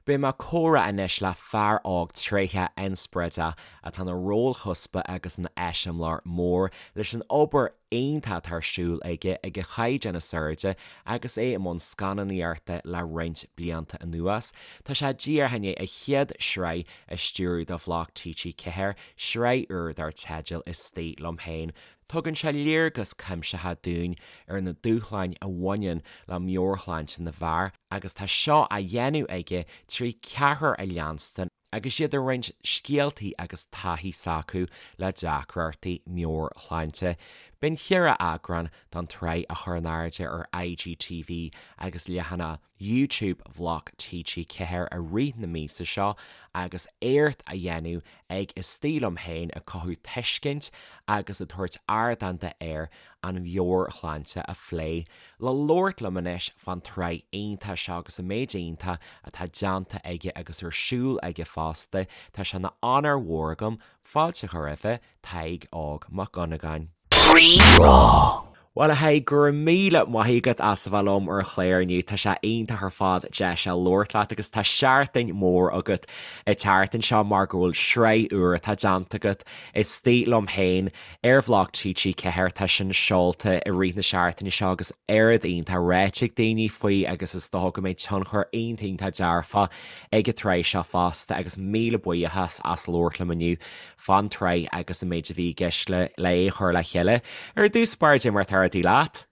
Beidh mé ag comhrá anois le fear óg tréitheach inspioráideach atá ina rólchuspa agus ina eiseamláir mór leis an obair iontach atá ar siúl aige ag an chaighdeán is airde agus é i mbun scannánaíochta le roinnt blianta anuas. Tá sé díreach i ndiaidh a chéad sraith a stiúradh do Bhloc TG4, sraith úr dar teideal Istigh Liom Féin. Tugann sé léargas cuimsitheach dúinn ar na dúshláin a bhaineann le meabhairshláinte na bhfear agus tá seo á dhéanamh aige trí cheathrar a leanstan agus iad ag roinnt scéaltaí agus taithí s'acu le deacrachtaí meabhairshláinte. Beidh an cheithre eagrán den tsraith á chur in airde ar IGTV agus leathanach YouTube Bhloc TG4 i rith na míosa seo agus éacht á dhéanamh ag Istigh Liom Féin ag cothú tuiscint agus ag tabhairt ardán d'fhir an mheabhairshláinte a phlé. Le labhairt liom anois fán tsraith iontach seo agus an méid iontach atá déanta aige agus ar siúl aige fosta, tá sé ina onóir mhór agam fáilte a chur roimhe, Tadhg Óg Mac Dhonnagáin. Rí-Rá. Bhuel a Thaidhg, go raibh míle maith agat as a bheith liom ar an chlár inniu, tá sé iontach ar fad deis a labhairt leat agus tá seachtain mhór agat an tseachtain seo mar go bhfuil sraith úr atá déanta agat, Istigh Liom Féin, ar Bhloc TG4, tá sin seolta i rith na seachtaine seo agus oiread iontach ráite ag daoine faoi agus is dócha go mbeidh tionchar iontach iontach dearfach ag an tsraith seo fosta agus míle buíochas as labhairt liom inniu. fán tsraith agus an méid a bhí i gceist le é a chur le chéile. Ar dtús báire, cad é mar atá rudaí leat?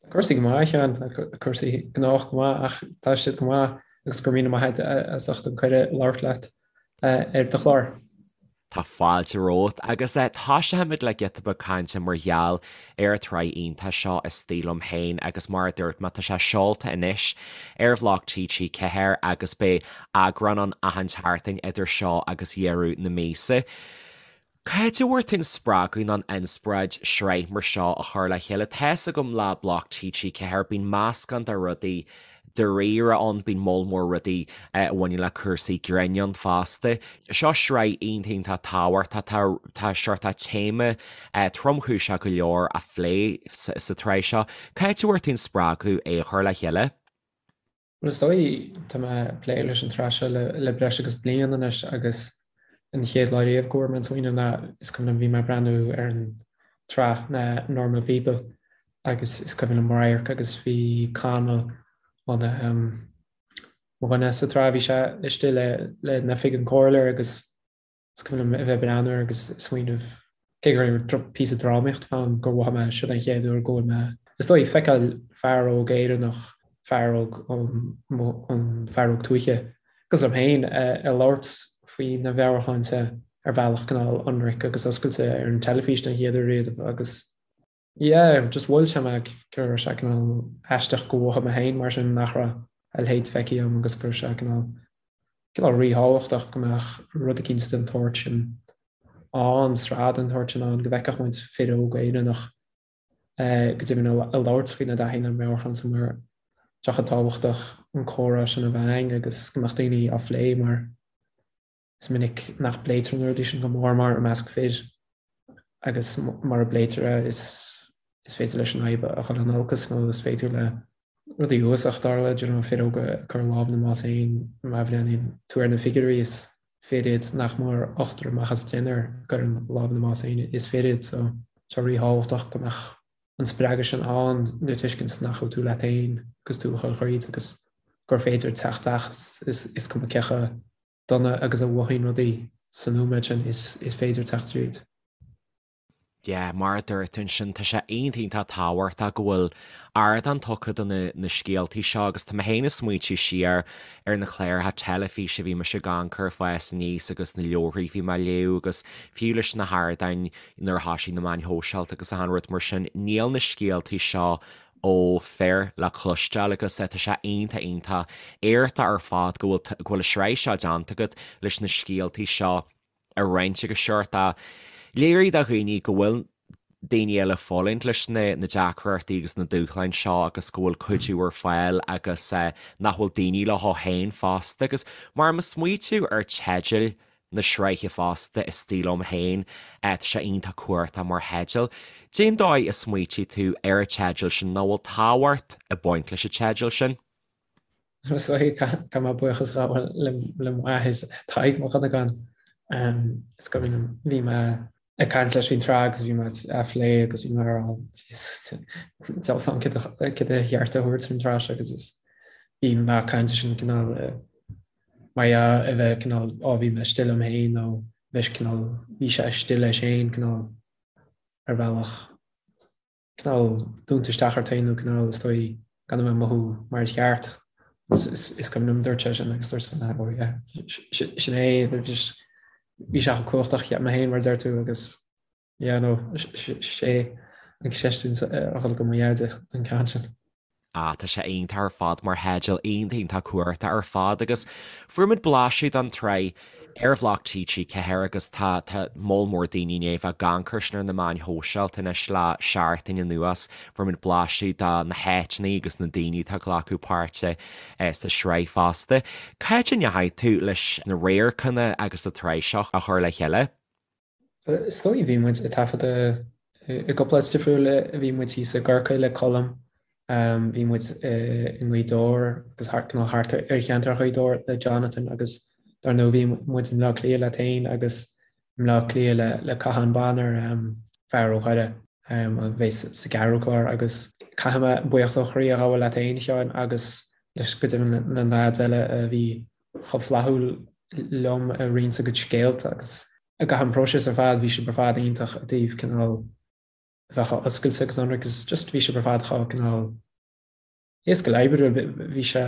Tá cúrsaí go maith, a Sheáin, tá cúrsaí gnách go maith ach tá siad go maith agus go raibh míle maith agat as ucht an cuireadh labhairt leat ar do chlár. Tá fáilte romhat agus toiseochaimid le giota beag cainte mar gheall ar an tsraith iontach seo Istigh Liom Féin agus mar a dúirt mé tá sé seolta anois ar Bhloc TG4 agus beidh eagrán ann achan tseachtain idir seo agus dheireadh na míosa. Cá háit a bhfuair tú an spreagadh nó an inspioráid sraith mar seo a chur le chéile? Tá's agam le Bloc TG4 bíonn meascán de rudaí dáiríre ann, bíonn moll mór rudaí a bhaineann le cúrsaí grinn ann fosta. Seo sraith iontach iontach tábhachtach, tá tá seort téama tromchúiseach go leor á phlé sa tsraith seo. Cá háit a bhfuair tú an spreagadh é a chur le chéile? Bhuel, is dóigh, tá mé ag plé leis an tsraith seo le breis agus bliain anois agus an chéad lá riamh go bhfuair mé an smaoineamh ná is cuimhin liom bhí mé ag breathnú ar an tsraith na Normal People agus is cuimhin liom radharc agus bhí Connell an mo dhuine sa tsraith bhí sé istigh le le in oifig an comhairleoir agus Is cuimhin liom a bheith ag breathnú air agus ag smaoineamh, cé gur píosa drámaíochta atá ann, gur mhothaigh mé, siod an chéad uair go bhfuil mé, is dóigh, feiceáil fear óg Éireannach, fear óg ón fear óg tuaithe, cosúil liom féin, ag labhairt faoina mheabhairshláinte ar bhealach cineál ionraic agus oscailte ar an teilifís den chéad uair riamh agus yeah, just bhuail sé mé go raibh sé cineál aisteach go mhothaigh mé féin mar sin nach raibh a leithéid feicthe agam agus go raibh sé cineál cineál ríthábhachtach go mbeadh rud eicínt den tsórt sin ann, sraith den tsórt sin ann, go bhfeicfeadh muid fir óga Éireannach go deimhin ag labhairt faoina dtaithí lena meabhairshláinte mar tá sé chomh tábhachtach an comhrá sin a bheith ann agus go mbeadh daoine á phlé mar Is minic nach bpléitear na rudaí sin go mór mór i measc fir agus mura bpléitear é is is féidir leis an fhadhb a dhul in olcas nó is féidir le rudaí uafásacha tarlú, you know, fir óga ag cur lámh ina mbás féin, má bhreathnaíonn tú ar na figiúirí is fir iad nach mór ochtar amach as deichniúr a gcuireann lámh ina mbás féin is fir iad so tá ríthábhachtach go mbeadh an spreagadh sin ann le tuiscint nach bhfuil tú leat féin agus tú ag dul thríd agus gur féidir teacht as is cuma cé chomh dona agus a mhothaíonn rudaí sa nóiméad sin is féidir teacht tríd. Yeah, mar a dúirt tú ansin, tá sé iontach iontach tábhachtach go bhfuil ardán tugtha do na na scéaltaí seo agus tá mé féin ag smaointiú siar ar na cláracha teilifíse a bhí mise ag amharc air ag fás aníos agus na leabharthaí a bhí mé ag léamh agus fiú leis na hardáin nuair a thosaigh na meáin shóisialta agus achan rud mar sin, níl na scéaltaí seo ó fir le cloisteáil agus tá sé iontach iontach éachtach ar fad go bhfuil go bhfuil an sraith seo déanta agat leis na scéaltaí seo a roinnt agus seort a léiriú do dhaoine go bhfuil daoine eile ag fulaingt leis na na deacrachtaí agus na dúshláin seo agus go bhfuil cuidiú ar fáil agus nach bhfuil daoine leo féin fosta agus mar ag smaoitiú ar teideal na sraithe fosta, Istigh Liom Féin. Tá sé iontach cumhachtach mar theideal. Cén dóigh a smaoitigh tú ar an teideal sin nó bhfuil tábhacht ag baint leis an teideal sin? Is dóigh caithfidh mé buíochas a ghabháil le m'athair Tadhg Mac Dhonnagáin. Is cuimhin liom bhí mé ag caint leis faoin tsraith agus bhí mé á phlé agus bhí mé ag rá níl a fhios agam céard ba cheart a thabhairt faoin tsraith seo agus is bhí an nath cainte sin cineál mar dhea a bheith cineál á bhí mé istigh liom féin nó bheith cineál bhí sé istigh leis féin cineál ar bhealach cineál dúnta isteach ort féin nó cineál is dóigh gan a bheith ag mothú mar is ceart. Is cuimhin liom dúirt sé sin agus dúirt sé oh yeah sin é bhí sé chomh cumhachtach cheap mé féin mar a deir tú agus yeah no sé an cheist sin a dhul go mo dheaide an ceann sin. Ah, tá sé iontach ar fad mar theideal, iontach iontach cumhachtach ar fad agus fuair muid blaiseadh den tsraith ar bhloc TG4 agus tá tá moll mór daoine i ndiaidh a bheith ag amharc air sin ar na meáin shóisialta anois le seachtain anuas. Fuair muid blaiseadh de na háiteanna agus na daoine atá ag glacadh páirte sa sraith fosta. Cá háit a ndeachaigh tú leis na radharcanna agus an tsraith seo a chur le chéile? Is dóigh, bhí muid ag taifeadadh i gcúpla áit difriúil, bhí muid thíos i gCorcaigh le Colm, bhí muid i nGaoth Dobhair agus thart cineál thart ar cheantar Ghaoth Dobhair le Jonathan agus dar ndóigh bhí muid i mBleá Cliath leat féin agus i mBleá Cliath le le Cathán Bonner, fear ó Dhoire a bheidh sa gceathrú clár agus caithfidh mé buíochas ó chroí a ghabháil leat féin, a Sheáin, agus leis go deimhin na leaids eile a bhí chomh flaithiúil liom ag roinnt a gcuid scéalta agus i gcaitheamh an próiseas ar fad bhí sibh ar fad iontach i dtaobh cineál a bheith chomh oscailte agus ionraic agus just bhí sibh ar fad chomh cineál éasca le oibriú bhí sé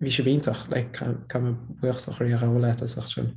bhí sibh iontach like caithfidh mé buíochas ó chroí a ghabháil leat as ucht sin.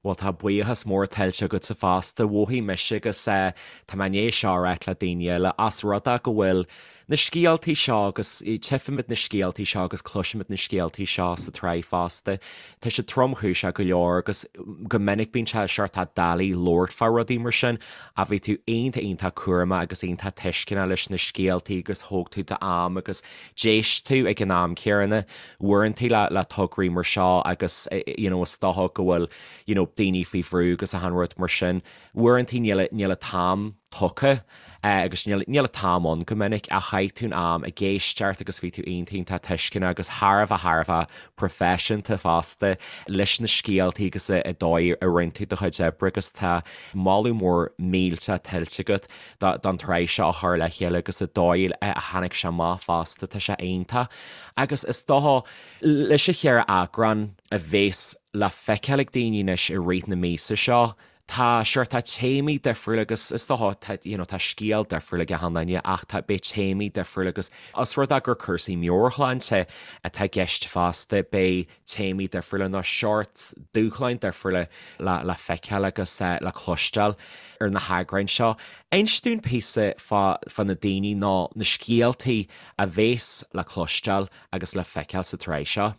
Bhuel, tá buíochas mór tuillte agatsa fosta. Mhothaigh mise agus tá mé i ndiaidh seo a ráit le daoine eile, as rud é go bhfuil na scéaltaí seo agus tchífimid na scéaltaí seo agus cloisimid na scéaltaí seo sa tsraith fosta. Tá siad tromchúiseach go leor agus go minic bíonn sé seort doiligh labhairt fá rudaí mar sin ach bhí tú iontach iontach cúramach agus iontach tuisceanach leis na scéaltaí agus thóg tú d'am agus d'éist tú ag an am céanna. Uaireanta le le tograí mar seo agus you know is dócha go bhfuil you know daoine faoi bhrú agus achan rud mar sin, uaireanta níl níl an t-am tugtha agus níl níl an t-am ann go minic ach chaith tú an am ag éisteacht agus bhí tú iontach iontach tuisceanach agus thar a bheith thar a bheith proifisiúnta fosta leis na scéaltaí agus an dóigh a rinne tú do chuid oibre agus tá moladh mór millteach tuillte agat don tsraith seo a chur le chéile agus an dóigh a tháinig sé amach fosta, tá sé iontach. Agus is dócha, leis an cheithre eagrán a bhéas le feiceáil ag daoine anois i rith na míosa seo, tá, sure, tá téamaí difriúla agus is dócha, tá, you know, tá scéal difriúil ag achan duine ach tá, beidh téamaí difriúla agus os rud é gur cúrsaí meabhairshláinte atá i gceist fosta, beidh téamaí difriúla nó seort dúshláin difriúla le feiceáil agus le cloisteáil ar na heagráin seo. Inis dúinn píosa fá na daoine nó na scéaltaí a bhéas le cloisteáil agus le feiceáil sa tsraith seo.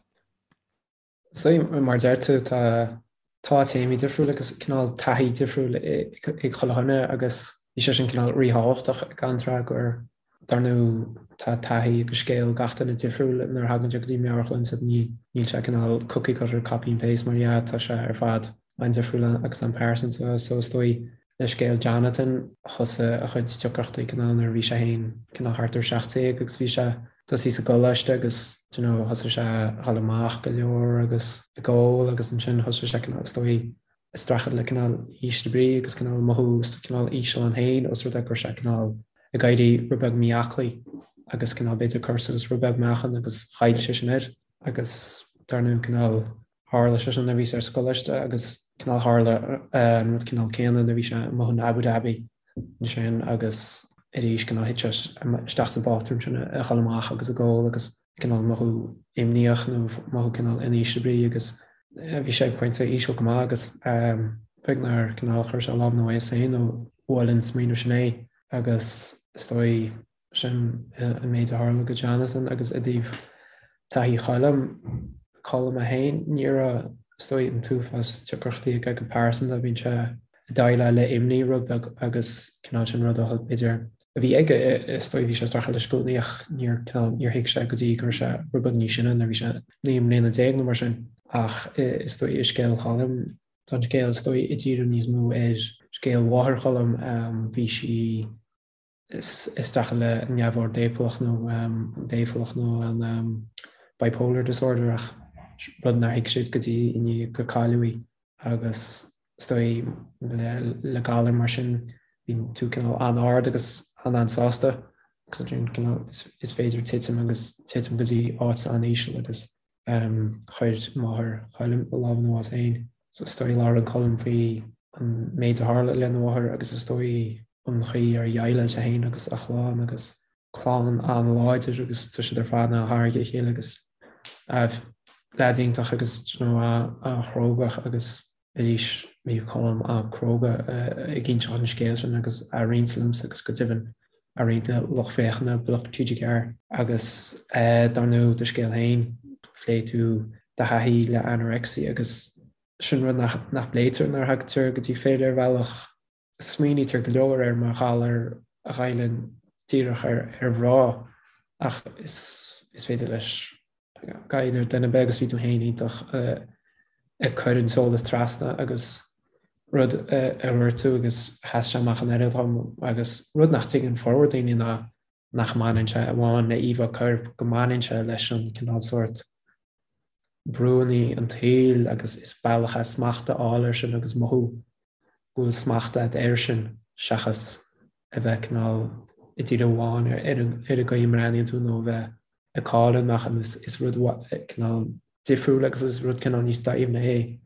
So, mar a deir tú, tá tá téamaí difriúla agus cineál taithí difriúil ag chuile dhuine agus bhí sé sin cineál ríthábhachtach don tsraith gur Dar ndóigh, tá taithí agus scéal gach duine difriúil nuair a thagann sé go dtí meabhairshláinte. Níl sé cineál cookie cutter, copy and paste mar dhea, tá sé ar fad an-difriúil agus an-pearsanta. So is dóigh le scéal Jonathan, thosaigh a chuid deacrachtaí cineál nuair a bhí sé féin cineál thart ar 17 agus bhí sé tosaithe sa gcoláiste agus do you know thosaigh sé a dhul amach go leor agus ag ól agus ansin thosaigh sé cineál is dóigh ag streachailt le cineál ísle brí agus cineál mothú cineál íseal ann féin os rud é go raibh sé cineál ag éirí rud beag mí-aclaí agus cineál b'fhéidir cur suas rud beag meáchan agus chaill sé sin air agus dar ndóigh cineál tharla sé sin nuair a bhí sé ar scoláiste agus cineál tharla an rud cineál céanna nuair a bhí sé amuigh in Abu Dhabi ansin agus arís cineál thit sé isteach sa bpátrún sin a dhul amach agus ag ól agus cineál mothú imníoch nó mothú cineál in ísle brí agus bhí sé ag pointe íseal go maith agus beag nár cineál chuir sé lámh ina bhás féin nó bhuail an smaoineamh sin é agus is dóigh sin an méid a tharla go Jonathan agus i dtaobh taithí Choilm, Colm é féin, ní raibh is dóigh an t-uafás deacrachtaí aige go pearsanta, bíonn sé ag déileáil le imní rud beag agus cineál sin rud a b'fhéidir a bhí aige, is dóigh, bhí sé ag streachailt leis i gcónaí ach níor, cineál, níor thuig sé go dtí go raibh sé rud beag níos sine, nuair a bhí sé 19 mbliana nó mar sin. Ach is dóigh i scéal Choilm, tá an scéal is dóigh ag díriú níos mó ar scéal mháthair Choilm, bhí sí. Is dócha le neamhord dépholach nó an dépholach nó an bipolar disorder ach rud nár thuig siad go dtí i ndiaidh gur cailleadh í agus is dóigh le galar mar sin bíonn tú cineál an-ard agus an-an-sásta agus ansin cineál is féidir titim agus titim go dtí áit an-íseal agus Chuir máthair Choilm a lámh ina bhás féin. So is dóigh labhrann Colm faoi an méid a tharla lena mháthair agus is dóigh an chaoi ar dhéileáil sé féin agus a chlann agus clann an-láidir agus tá siad ar fad an-ghar dá chéile agus leaid iontach agus you know an-chrógach agus arís bhí Colm an-cróga ag inseacht an scéil sin agus á roinnt liomsa agus go deimhin á roinnt le lucht féachana Bloc TG4. Agus dar ndóigh do scéal féin, phléigh tú do thaithí le anorexia agus sin rud nach bpléitear nuair a thagtar go dtí fir ar bhealach. Smaoinítear go leor air mar ghalar a ghoilleann díreach ar mhná ach is féidir leis goilleadh ar dhuine ar bith agus bhí tú féin iontach ag cur an t-eolas trasna agus rud a dúirt tú agus sheas sé amach an oiread dom agus rud nach dtuigeann formhór daoine ná nach mbaineann sé amháin le íomhá coirp, go mbaineann sé leis an cineál sórt brúanna an tsaoil agus is bealach é smacht a fháil air sin agus mothú go bhfuil smacht agat air sin seachas a bheith cineál ag díriú amháin ar an gcaoi a mbreathnaíonn tú nó a bheith ag cailleadh an meáchan. Is rud cineál difriúil agus is rud cineál níos doimhne é.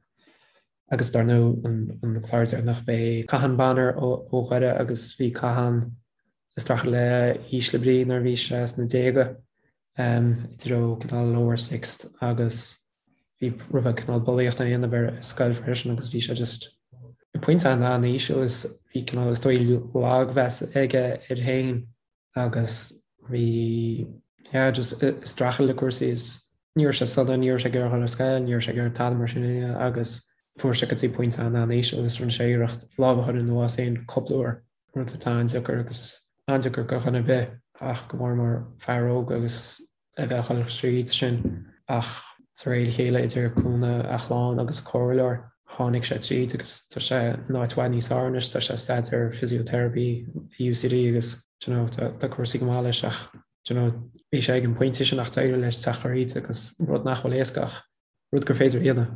Agus dar ndóigh an clár deireanach b'é Cathán Bonner ó Dhoire agus bhí Cathán ag streachailt le ísle brí nuair a bhí sé sna déaga i dtreo cineál lower sixth agus bhí rud beag cineál bulaíocht á dhéanamh air ar scoil freisin agus bhí sé just ag pointe an-íseal is bhí cineál is dóigh lagmheas aige air féin agus bhí yeah just ag streachailt le cúrsaí is ní raibh sé sona, ní raibh sé ag iarraidh dul ar scoil, ní raibh sé ag iarraidh tada mar sin a dhéanamh agus fuair sé go dtí pointe an-an-íseal agus rinne sé iarracht lámh a chur ina bhás féin cúpla uair, rud atá an-deacair agus an-deacair do dhuine ar bith ach go mór mór fear óg agus a bheith ag dul tríd sin ach de réir a chéile idir cúnamh a chlann agus comhairleoir tháinig sé tríd agus tá sé in áit i bhfad níos fearr anois, tá sé ag staidéar physiotherapy i UCD agus do you know tá cúrsaí go maith leis ach do you know bhí sé ag an pointe sin ach d'éirigh leis teacht thríd agus rud nach bhfuil éasca ach rud gur féidir a dhéanamh.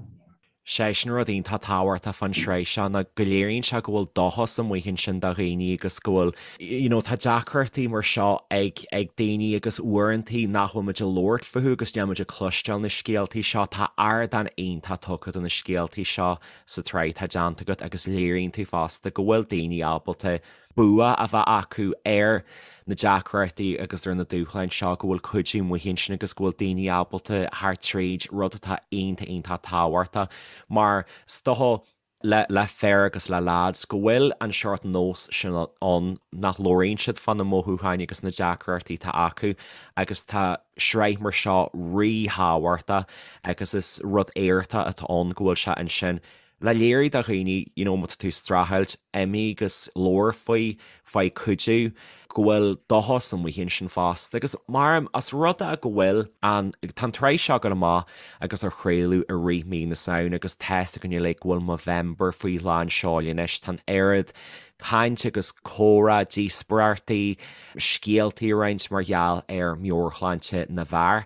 Sé sin rud iontach tábhachtach fán sraith seo ná go léiríonn sé go bhfuil dóchas amuigh ansin do dhaoine agus go bhfuil, you know, tá deacrachtaí mar seo ag, ag daoine agus uaireantaí nach bhfuil muid ag labhairt fúthu agus níl muid ag cloisteáil na scéaltaí seo. Tá ardán iontach tugtha do na scéaltaí seo sa tsraith atá déanta agat agus léiríonn tú fosta go bhfuil daoine ábalta bua a bheith acu ar na deacrachtaí agus ar na dúshláin seo, go bhfuil cuidiú amuigh ansin agus go bhfuil daoine ábalta theacht tríd, rud atá iontach, iontach tábhachtach mar is dócha le, le fir agus le lads go bhfuil an seort nós sin ann nach labhraíonn siad fá na mothúcháin agus na deacrachtaí atá acu agus tá sraith mar seo ríthábhachtach agus is rud éachtach atá ann go bhfuil sé ansin Le léiriú do dhaoine, you know, má tá tú ag streachailt, imigh agus labhair faoi, faigh cuidiú, go bhfuil dóchas amuigh ansin fosta. Agus mar, os rud é go bhfuil an, tá an tsraith seo ag dul amach agus á chraoladh i rith mí na Samhna agus tá's againn uilig go bhfuil Movember faoi lán seoil anois, tá an oiread caint agus comhrá, díospóireachtaí, scéaltaí a roinnt mar gheall ar meabhairshláinte na bhfear.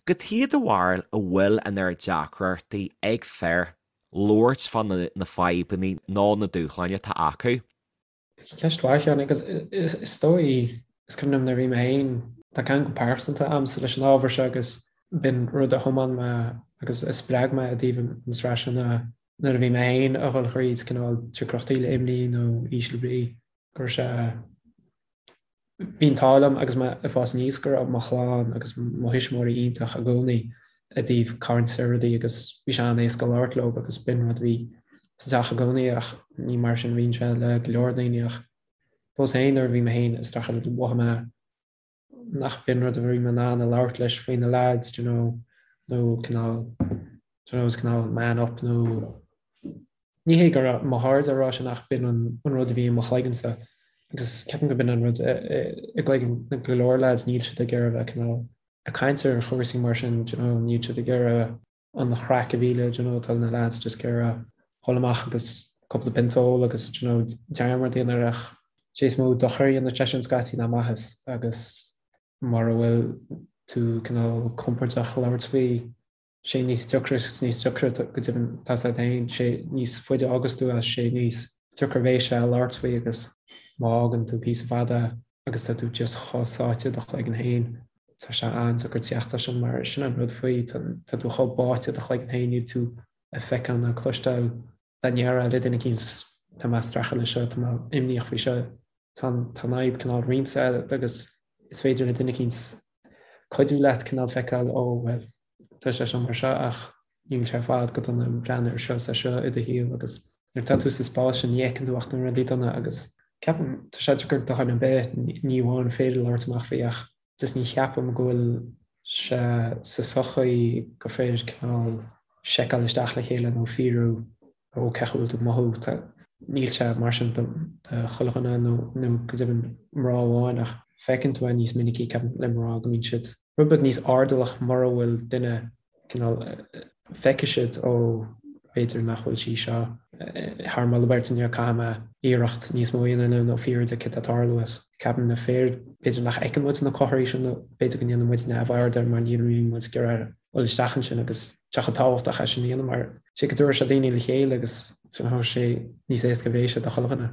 Cad chuige do bharúil a bhfuil an oiread deacrachtaí ag fir labhairt fá na fadhbanna nó na dúshláin atá acu. Ceist mhaith, a Sheáin, agus is dóigh, is cuimhin liom nuair a bhí mé féin, tá ceangal pearsanta agamsa leis an ábhar seo agus b'in rud a thiomáin mé agus a spreag mé i dtaobh an tsraith seo ná nuair a bhí mé féin a dhul thríd cineál deacrachtaí le imní nó ísle brí, go raibh sé Bhí an t-ádh liom agus mé ag fás aníos go raibh mo chlann agus mo thuismitheoirí iontach i gcónaí i dtaobh caint ar rudaí agus bhí sé an-éasca labhairt leo agus b'in rud a bhí sa teach i gcónaí ach ní mar sin a bhíonn sé le go leor daoine ach fós féin nuair a bhí mé féin ag streachailt mhothaigh mé nach b'in rud a bhí mé in ann a labhairt leis faoi na lads do you know nó cineál do you know is cineál man up nó Ní hé go raibh mo chairde ag rá sin ach b'in an rud a bhí i mo chloigeannsa agus ceapaim go b'in an rud i gcloigeann go leor lads, níl siad ag iarraidh bheith cineál ag caint ar chúrsaí mar sin, do you know, níl siad ag iarraidh an chraic a mhilleadh, do you know, tá na lads just ag iarraidh dhul amach agus cúpla pionta a ól agus, do you know, dearmad a dhéanamh air ach. Sé is mó dochar a dhéanann sé sin scaití ná maitheas agus mura bhfuil tú cineál compordach labhairt faoi, sé níos deacra is níos deacra go deimhin tá a fhios agat féin, sé níos faide a fhágas tú as, sé níos deacra a bheidh sé labhairt faoi agus má fhágann tú píosa fada agus tá tú just chomh sáite i do chloigeann féin, tá sé an-deacair teacht as sin mar sin an rud faoi, tá tú chomh báite i do chloigeann féin, níl tú ag feiceáil ná cloisteáil dá ndéarfá le duine eicínt tá mé ag streachailt leis seo, tá mé imníoch faoi seo, tá an fhadhb cineál roinnte agat agus is féidir le duine eicínt cuidiú leat cineál feiceáil ó bhuel tá sé seo mar seo ach níl sé ar fad go dona breathnaigh ar seo is ar seo i do shaol agus nuair atá tú sa spás sin ní fheiceann tú ach na rudaí dona agus ceapaim tá sé deacair do dhuine ar bith ní amháin féidir labhairt amach faoi ach Just ní cheapaim go bhfuil sé sa sochaí gur féidir cineál seiceáil isteach le chéile nó fiafraí ó cén chaoi a bhfuil tú ag mothú. Tá, níl sé mar sin do chuile dhuine nó nó go deimhin mná amháin ach feiceann tú é níos minicí ceapaim le mná go mbíonn siad rud beag níos airdeallach mura bhfuil duine cineál, feicfidh siad, ó, b'fhéidir nach bhfuil sí seo thar moladh beirte inniu, caithfidh mé iarracht níos mó a dhéanamh nó fiafraí di céard atá ag tarlú is ceapaim na fir, b'fhéidir nach bhfeiceann muid na comharthaí sin nó b'fhéidir go ndéanann muid neamhaird air mar ní bhíonn muid ag iarraidh dul isteach ansin agus tá sé chomh tábhachtach é sin a dhéanamh mar sé go dtabharfaidh sé daoine le chéile agus sé níos éasca a bheidh sé do chuile dhuine.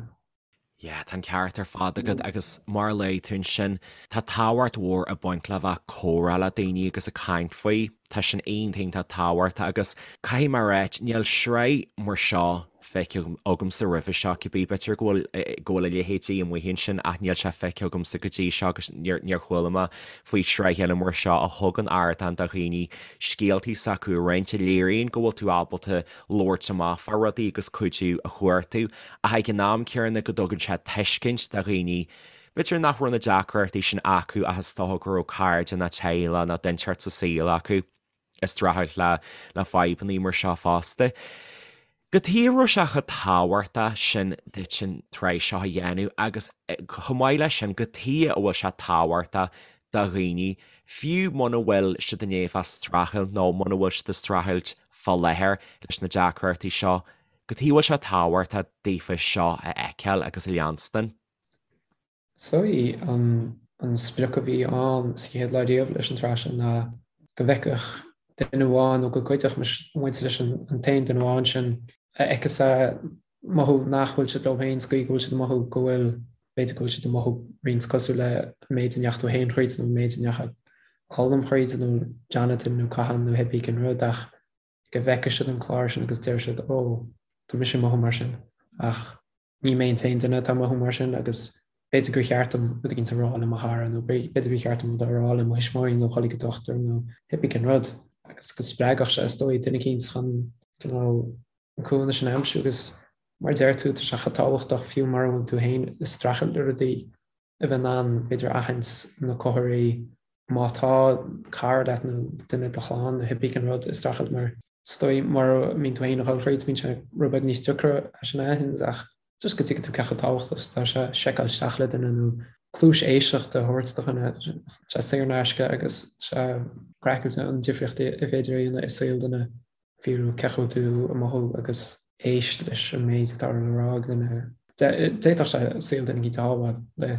Yeah, tá an ceart ar fad agat agus mar a luaigh tú ansin, tá tábhacht mhór ag baint le bheith ag comhrá le daoine agus ag caint faoi. Tá sin iontach iontach tábhachtach agus caithfidh mé a ráit, níl sraith mar seo feicthe agamsa roimhe seo, cibé, b'fhéidir go bhfuil go bhfuil a leithéidí amuigh ansin ach níl sé feicthe agamsa go dtí seo agus níor níor chuala mé faoi shraith eile mar seo a thugann ardán do dhaoine scéaltaí s'acu a roinnt, a léiríonn go bhfuil tú ábalta labhairt amach fá rudaí agus cuidiú a chuartú ach ag an am céanna go dtugann sé tuiscint do dhaoine, b'fhéidir nach raibh na deacrachtaí sin acu ach is dócha go raibh cairde nó teaghlach nó duine inteacht sa saol acu ag streachailt le le fadhbanna mar seo fosta. Cad chuige a raibh sé chomh tábhachtach sin duit an tsraith seo a dhéanamh agus chomh maith leis sin cad chuige a bhfuil sé tábhachtach do dhaoine, fiú muna bhfuil siad i ndiaidh bheith ag streachailt nó muna bhfuil siad ag streachailt fá láthair leis na deacrachtaí seo, cad chuige a bhfuil sé tábhachtach daofa seo a fheiceáil agus a leanstan. Is dóigh an sprioc a bhí ann sa chéad lá riamh leis an tsraith seo ná go bhfeicfeadh duine amháin nó go gcuideodh muid leis an t-aon duine amháin sin a fheiceas é mothú nach bhfuil siad leo féin sa gcaoi go bhfuil siad ag mothú go bhfuil, b'fhéidir go bhfuil siad ag mothú roinnt cosúil le an méid a ndeachaigh tú féin thríd nó an méid a ndeachaigh Colm thríd nó Jonathan nó Cathal nó cibé cén rud ach go bhfeicfidh siad an clár sin agus deir siad ó, tá mise ag mothú mar sin ach ní mé an t-aon duine atá ag mothú mar sin agus b'fhéidir gur cheart dom rud éicint a rá le mo chara nó b'fhéidir gur cheart dom rud a rá le mo thuismitheoirí nó dhul ag an dochtúir nó cibé cén rud agus go spreagfadh sé is dóigh duine eicínt chun cineál an cúnamh sin a aimsiú agus mar a deir tú, tá sé chomh tábhachtach fiú mura bhfuil tú féin ag streachailt le rudaí a bheith in ann b'fhéidir aithint na comharthaí má tá cara leat nó duine i do chlann nó cibé cén rud ag streachailt mar is dóigh mura mbíonn tú féin ag dul thríd bíonn sé rud beag níos deacra é sin a aithint ach just go dtuigfidh tú cé chomh tábhachtach is atá sé seiceáil isteach le duine nó cluais éisteachta a thabhairt do dhuine, tá sé saor in aisce agus tá sé craiceáilte an difríocht a féidir a dhéanamh i saol duine. fiafraí cén chaoi a bhfuil tú ag mothú agus éist leis an méid atá le rá ag duine. D'fhéadfadh sé saol duine éicint a shábháil.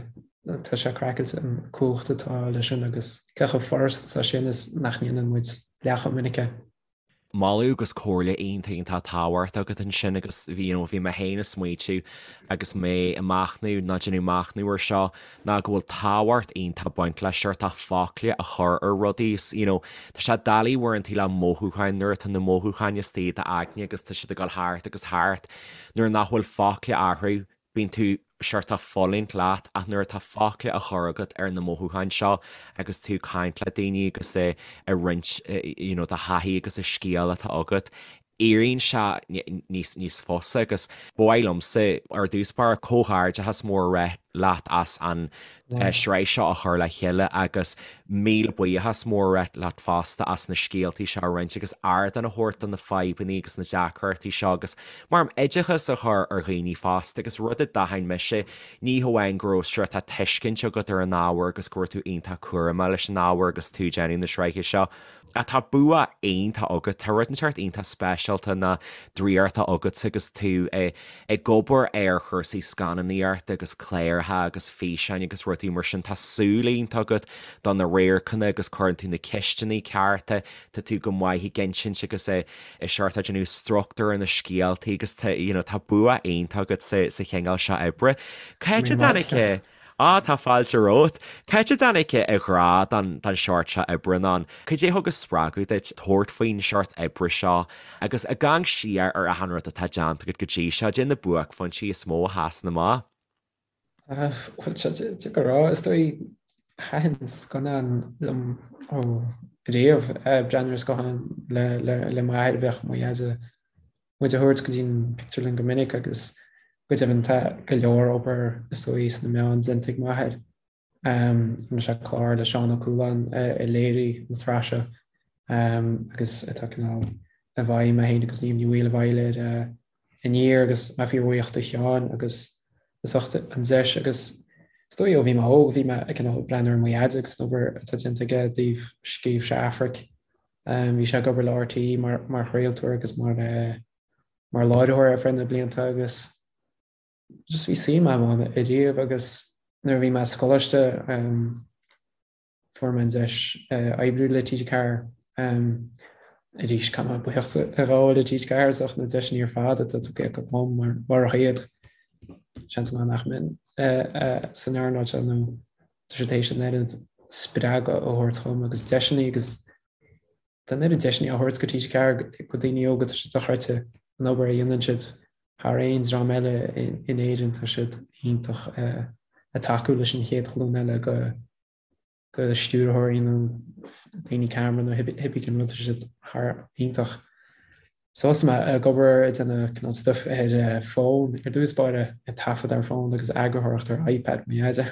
Tá sé craiceáilte an cumhacht atá leis sin agus cé chomh furasta atá sin is nach ndéanann muid leath chomh minic é. Moladh agus comhairle iontach iontach tábhachtach agat ansin agus bhí you know bhí mé féin ag smaoitiú agus mé ag machnamh nó déanamh machnamh ar seo ná go bhfuil tábhacht iontach ag baint le seort focla a chur ar rudaí is you know tá sé doiligh uaireanta le mothúcháin nuair atá na mothúcháin istigh i d'aigne agus tá siad ag dul thart agus thart nuair nach bhfuil focla orthu bíonn tú seort ag fulaingt leat ach nuair atá focla á chur agat ar na mothúcháin seo agus tú ag caint le daoine agus ag roinnt you know do thaithí agus an scéal atá agat éiríonn sé níos níos fusa agus ba mhaith liomsa ar dtús báire comhghairdeachas mór a rá leat as an sraith seo a chur le chéile agus míle buíochas mór a rá leat fosta as na scéaltaí seo a roinnt agus ardán a thabhairt do na fadhbanna agus na deacrachtaí seo agus mar oideachas a chur ar dhaoine fosta agus rud a d'aithin mise ní hamháin go raibh seort tuiscint agat ar an ábhar agus go raibh tú iontach cúramach leis an ábhar agus tú ag déanamh na sraithe seo Ach tá bua iontach agat, tá rud inteacht iontach speisialta nó draíochta agatsa agus tú ag obair ar chúrsaí scannánaíochta agus cláir. cláracha agus físeáin agus rudaí mar sin, tá súil iontach agat do na radharcanna agus cuireann tú na ceisteanna cearta, tá tú go maith ag insint agus i seort ag déanamh struchtúr ar na scéaltaí agus tá you know tá bua iontach agat sa sa chineál seo oibre. Cá háit a dtáinig Á, tá fáilte romhat. Cá háit a dtáinig an grá don don seort seo oibre ann? Cad é a thug an spreagadh duit tabhairt faoin seort oibre seo agus ag amharc siar ar achan rud atá déanta agat go dtí seo, cad é na buaicphointí is mó a sheasann amach? Bhuel, tá sé deacair a rá, is dóigh, thaitin scannáin liom ó riamh, breathnú ar scannáin le m'athair, bheadh mo dheaide muid a thabhairt go dtí an pictiúrlann go minic agus go deimhin tá go leor obair is dóigh sna meáin déanta ag m'athair. Rinne sé clár le Seán Ó Cualáin a léirigh an tsraith seo agus atá cineál i bhfeidhm, mé féin agus Niamh Ní Bhaoill i bhfeighil ar Aniar agus mé fíorbhuíoch do Sheán agus as ucht an deis agus is dóigh ó bhí mé óg bhí mé ag cineál breathnú ar mo dheaide agus an obair atá déanta aige i dtaobh scríobh sé Aifric. Bhí sé ag obair le RTÉ mar mar chraoltóir agus mar mar láithreoir ar feadh na blianta agus just bhí suim agam ann ariamh agus nuair a bhí mé sa choláiste fuair mé an deis oibriú le TG4. Arís, caithfidh mé buíochas a ghabháil le TG4 as ucht na deiseanna ar fad atá tugtha acu dom mar murach iad, seans maith nach mbeinn san earnáil seo nó tá siad théis an oiread spreagadh a thabhairt dhom agus deiseanna agus tá an oiread deiseanna á thabhairt ag TG4 go daoine óga, tá sé dochreidte an obair a dhéanann siad thar aon dream eile in Éirinn, tá siad iontach ag tacú leis an chéad ghlúin eile go go stiúrthóirí nó daoine ceamara nó cibé cén rud, tá siad thar iontach. So thosaigh mé ag obair ag déanamh cineál stuif ar fón ar dtús báire, ag taifead ar fón agus eagarthóireacht ar iPad mo dheaide.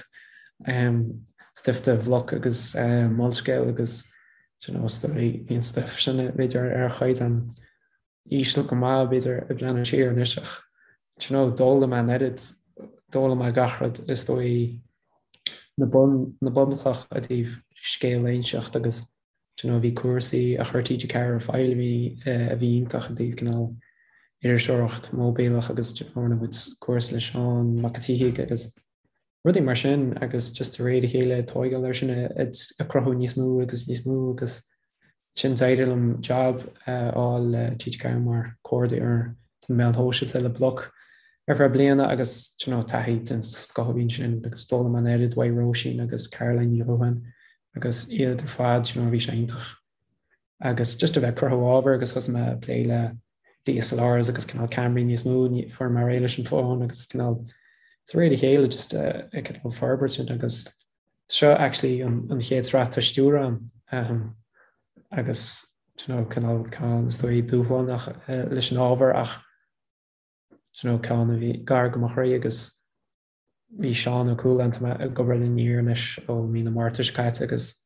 Stuif do Bhloc agus Molscéal agus you know, bhí an stuif sin b'fhéidir ar chaighdeán íseal go maith, b'fhéidir, ag breathnú siar anois ach do you know, d'fhoghlaim mé an oiread, d'fhoghlaim mé gach rud is dóigh na bun, na bunchloch i dtaobh scéal a inseacht agus do you know, bhí cúrsaí a chuir TG4 ar fáil a bhí, a bhí iontach i dtaobh cineál iriseoireacht móibíleach agus do you know, rinne muid cúrsa le Seán Mac an tSíthigh agus rudaí mar sin agus just de réir a chéile ag tóigeáil air sin ag cruthú níos mó agus níos mó agus ansin d'éirigh liom job a fháil le TG4 mar comhordaitheoir do na meáin shóisialta le Bloc ar feadh bliana agus you know taithí den scoth a bhí ansin agus d'fhoghlaim mé an oiread uaidh Róisín agus Caroline Ní Dhubháin agus iad ar fad you know bhí sé iontach agus just a bheith ag cruthú ábhair agus thosaigh mé ag plé le DSLRs agus cineál ceamaraí níos mó, fuair mé réidh leis an bhfón agus cineál de réir a chéile just ag cineál forbairt sin agus seo actually an, an chéad sraith atá á stiúradh agam agus you know, cineál ceann is dóigh dúshlánach leis an ábhar ach you know, ceann a bhí gar go mo chroí agus Bhí Seán Ó Cualáin, tá mé ag obair le Aniar anois ó mí na Márta seo caite agus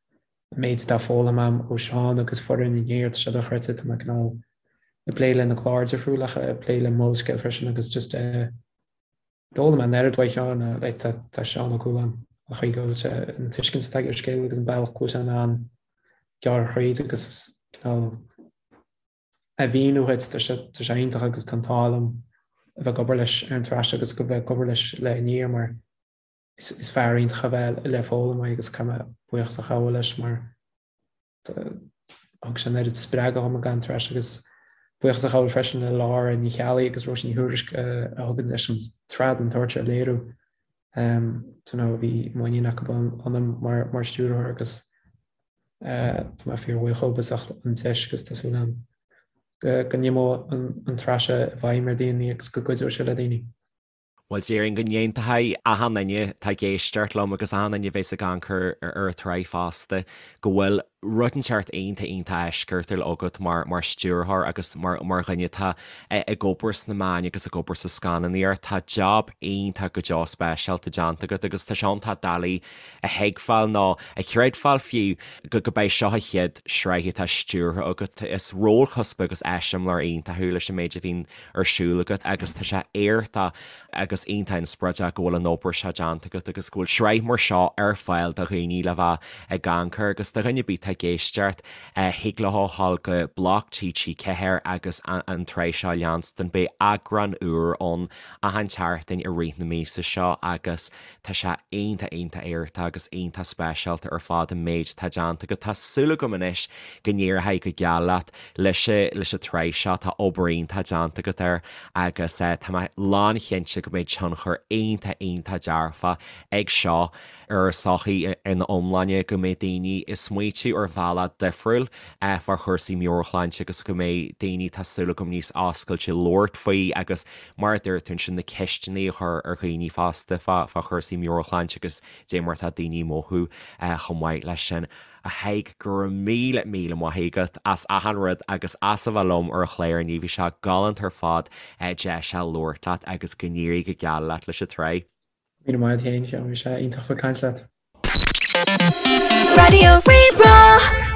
an méid atá foghlamtha agam ó Seán agus foireann Aniar, tá sé dochreidte, tá mé cineál ag plé le na cláir difriúla, ag plé le Molscéal freisin agus just d'fhoghlaim mé an oiread uaidh Sheán, like tá tá Seán Ó Cualáin, an chaoi go bhfuil sé, an tuiscint atá aige ar scéal agus an bealach go bhfuil sé in ann gearradh thríd agus cineál a mhíniú dhuit, tá sé tá sé iontach agus tá an t-ádh liom a bheith ag obair leis ar an tsraith seo agus go bheith ag obair leis le Aniar mar is is fear iontach a bheith le foghlaim uaidh agus caithfidh mé buíochas a ghabháil leis mar thug sé an oiread spreagadh dhom ag an tsraith seo agus buíochas a ghabháil freisin le Lára Ní Cheallaigh agus Róisín Ní Thuairisg a thug an deis an tsraith den tsórt seo a léiriú. You know, bhí muinín acu ionam mar mar stiúrthóir agus Tá mé fíorbhuíoch dhóibh as ucht an deis agus tá súil agam go n-imeoidh an tsraith seo i bhfeidhm ar dhaoine agus go gcuideoidh sé le daoine. Bhuel, déarfainn go n-aontóidh achan duine atá ag éisteacht liom agus achan duine a bheas ag amharc ar an tsraith fosta go bhfuil rud inteacht iontach iontach eisceachtúil agat mar mar stiúrthóir agus mar mar dhuine atá ag obair sna meáin agus ag obair sa scannánaíocht. Tá jab iontach go deo speisialta déanta agat agus tá sé iontach doiligh a thuigbheáil nó a chreidbheáil fiú go gurb é seo an chéad sraith atá stiúrtha agat. Is rólchuspa agus eiseamláir iontach thú leis an méid a bhíonn ar siúl agat agus tá sé éachtach agus iontach inspioráideach go bhfuil an obair seo déanta agat agus go bhfuil sraith mar seo ar fáil do dhaoine le bheith ag amharc air agus do dhuine ar bith atá. atá ag éisteacht, thig leo a ghabháil go Bloc TG4 agus an tsraith seo a leanstan. Beidh eagrán úr ann achan tseachtain i rith na míosa seo agus tá sé iontach, iontach aorta agus iontach speisialta ar fad an méid atá déanta agat. Tá súil agam anois go n-éireoidh go geal leat leis leis an tsraith seo, tá obair iontach déanta agat air agus tá mé lánchinnte go mbeidh tionchar iontach, iontach dearfach ag seo ar an tsochaí ina iomláine, go mbeidh daoine ag smaoitiú ar bhealach difriúil fá chúrsaí meabhairshláinte agus go mbeidh daoine, tá súil agam, níos oscailte labhairt faoi agus mar a dúirt tú ansin, na ceisteanna a chur ar dhaoine fosta fá chúrsaí meabhairshláinte agus dé mar atá daoine ag mothú chomh maith leis sin. A Thaidhg, go raibh míle, míle maith agat as achan rud agus as a bheith liom ar an chlár inniu. Bhí sé galánta ar fad deis a labhairt leat agus go n-éirí go geal leat leis an tsraith. Míle maith agat féin, Sheáin, bhí sé iontach bheith ag caint leat. Raidió Rí-Rá.